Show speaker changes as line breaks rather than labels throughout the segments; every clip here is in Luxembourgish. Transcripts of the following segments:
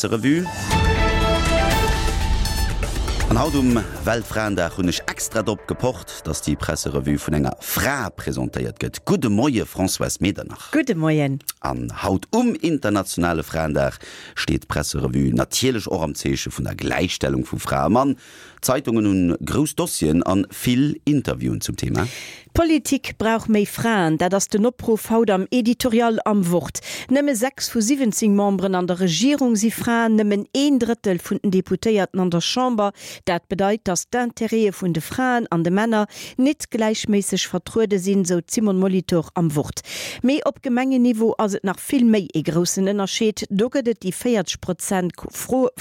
Presserevue. An haut um Weltfraendag hunn ech extra drop gepocht, dass déi Presserevue vun enger Fra presentéiert gëtt. Gudde Moie Françoise Medernach.
Gudde Moien.
An haut um internationale Fraendag steet d'Presserevue natierlech och am Zeeche vun der Gläichstellung vu Fra a Mann. D'Zeitungen hunn grouss Dossieren an vill Interviewen zum Thema.
D'Politik brauch méi Fraen, dat ass den Opruff haut am Editorial am Wort. Nëmme 6 vu 17 Memberen an der Regierung si Fraen, nëmmen een Drëttel vun den Deputéierten an der Chamber. Dat bedeit, datt d'Intérêtë vun de Fraen an de Männer nit gläichméisseg vertruede sinn, sou d'Simone Molitor am Wort. Mee op Gemengenniveau ass et nach vill méi ee groussen Ënnerscheed, do gëtt et déi 40 Prozent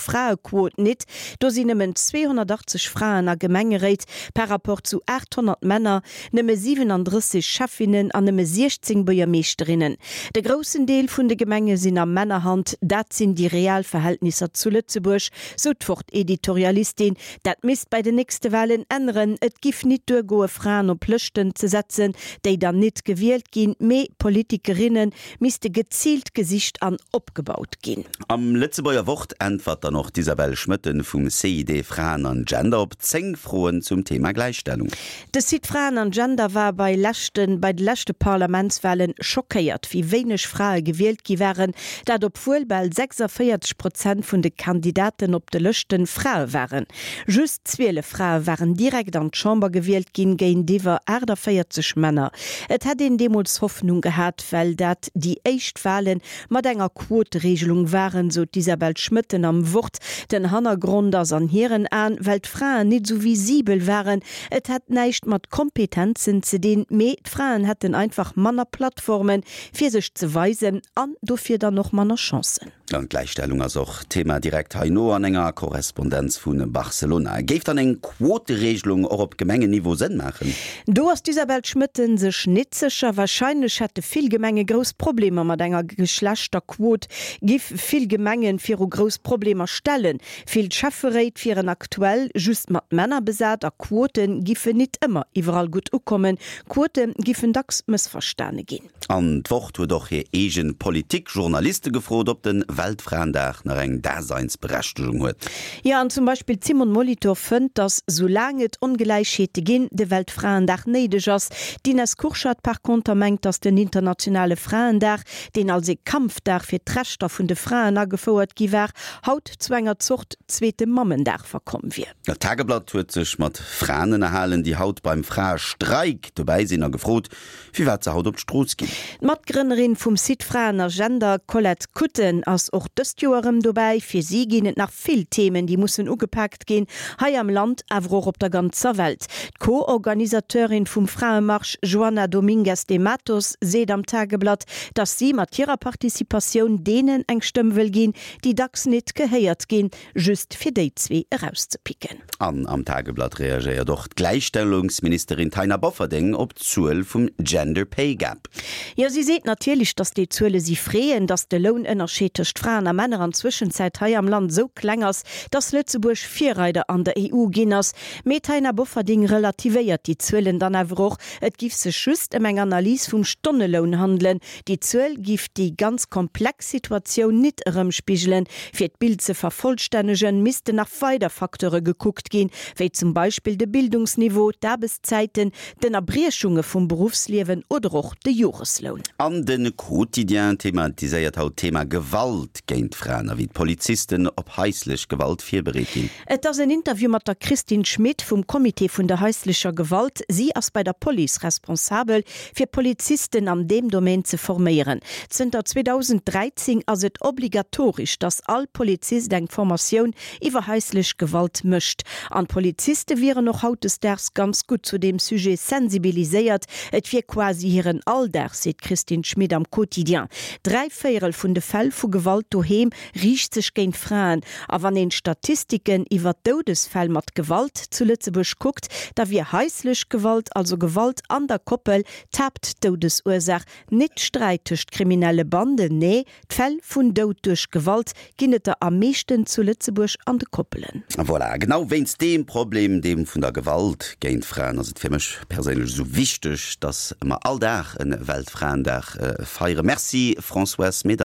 Fraequot nit. Do sinn nëmmen 280 Fraen a Gemengeréit par rapport zu 800 Männer, nëmme 37 Schäffinnen an nëmme 16 Buergermeeschterinnen. De groussen Deel vun de Gemenge sinn a Männerhand. Dat sinn déi real Verhältnisser zu Lëtzebuerg, sou d'Wort-Editorialistin. Dat misst bei den nächste Walen änneren. Et giff nit duergoe Fraen op Lëschten ze setzen, déi dann nit gewielt ginn, mee Politikerinnen misste geziilt gesicht an opgebaut ginn.
Am Lëtzebuerger Wort äntwert dann och d'Isabelle Schmoetten vum CID Fraen an Gender op 10 Froen zum Thema Gläichstellung.
De Site Fraen an Gender war bei leschte bei de leschte Parlamentswalen schockéiert, wéi wéineg Frae gewielt gi waren. Dat obwuel bal 46 Prozent vun de Kandidaten op de Lëschte Frae waren. Just 12 Frae waren direkt an d'Chamber gewielt ginn, géintiwwer 48 Männer. Et hätt een deemools Hoffnung gehat, well dat déi éischt Wale mat enger Quotereegelung waren, sou d'Isabelle Schmoetten am Wort. Den Hannergrond ass an hiren Aen, well d'Fraen nit esou visibel waren. Et hätt näischt mat Kompetenzen ze dinn, mee d'Fraen hätten einfach manner Plattformen, fir sech ze weisen an dofir dann och manner Chancen.
An d'Gläichstellung ass och Thema direkt heino an enger Korrespondenz vu Barcelona. Géif dann eng Quoteregelung och op Gemengenniveau Sënn maachen?
Do ass d'Isabelle Schmoetten sech nit sécher. Warscheinlech hätte vill Gemenge grouss Problemer mat enger Geschlechterquot, giff vill Gemengen viru grouss Problemer stellen. Vill Schäfferéit wieren aktuell just mat Männer besat a Quote giffen nit ëmmer iwwerall gutt ukommen. Quote giffen dacks mëssverstane ginn.
An d'Wort huet och hir eegen Politikjournaliste gefrot, ob de Weltfraendag nach eng Daseinsberechtegung huet.
Jo, an zum Beispill d'Simone Molitor fënnt, datt soulaang et Ongläichheete ginn, de Weltfraendag néideg ass. D'Ines Kurschat par conter mengt, datt den internationale Fraendag, deen als ee Kampfdag fir d'Rechter vun de Fraen agefouert gi war, haut zu enger Zort zweete Mammendag verkomm wier.
D'Tageblatt huet sech mat Fraen ënnerhalen, déi haut beim Fraestreik dobäi sinn a gefrot, firwat se haut op d'Strooss ginn.
D'Matgrënnerin vum Site Fraen a Gender, Colette Kutten, ass och dëst Joer erëm dobäi. Fir si ginn et nach vill Themen, déi mussen ugepaakt ginn, hei am Land, awer och op der ganzer Welt. D'Co-Organisateurin vum Fraemarsch, Joana Domingues de Matos, seet am Tageblatt, datt si mat hirer Participatioun deenen eng Stëmm wëll ginn, déi dacks nit gehéiert ginn. Just fir déi zwee erauszepicken.
An am Tageblatt reagéiert och d'Gläichstellungsministerin Taina Bofferding op d'Zuel vum Gender Pay Gap.
Jo, si seet natierlech, datt déi Zuele si freeën, datt de Lounënnerscheed tëscht Fraen a Männer an Zwëschenzäit hei am Land esou kleng ass, datt Lëtzebuerg Virreider an der EU ginn ass. Mee d'Taina Bofferding relativéiert déi Zuelen dann awer och, Et giff sech just ëm eng Analys vum Stonneloun handelen, Déi Zuel giff déi ganz komplex Situatioun nit erëmspigelen. Fir d'Bild ze vervollstännegen, missten nach weider Facteure gekuckt ginn, wéi zum Beispill de Bildungsniveau, d'Aarbechtszäiten, d'Ënnerbriechunge vum Beruffsliewen oder och de Joresloun.
An de Quotidien thematiséiert haut d'Thema Gewalt géint Fraen a wéi d'Polizisten op haislech Gewalt virbereet ginn.
Et ass en Interview mat der Christine Schmit vum Comité vun der haislecher Gewalt. Si ass bei der Police responsabel, fir Polizisten an deem Domaine ze forméieren. Zënter 2013 ass et obligatoresch, datt all Polizist eng Formatioun iwwer haislech Gewalt mécht. An d'Poliziste wieren och hautdesdaags ganz gutt zu deem Sujet sensibiliséiert. Et wier quasi hiren Alldag, seet d'Christine Schmit am Quotidien. Dräivéierel vun de Fäll vu Gewalt doheem riicht sech géint Fraen. A wann een d'Statistiken iwwer d'Doudesfäll mat Gewalt zu Lëtzebuerg kuckt, da wier haislech Gewalt, also Gewalt an der Koppel, d'Haaptdoudesursaach. Nit Sträit tëscht kriminelle Banden, nee, d'Fäll vun Doud duerch Gewalt ginn et der am meeschten zu Lëtzebuerg an de Koppelen.
Voilà, genau wéinst deem Problem, deem vun der Gewalt géint Fraen, ass et fir mech perséinlech esou wichteg, dass mer all Dag e Weltfraendag feieren. Merci Françoise Medernach.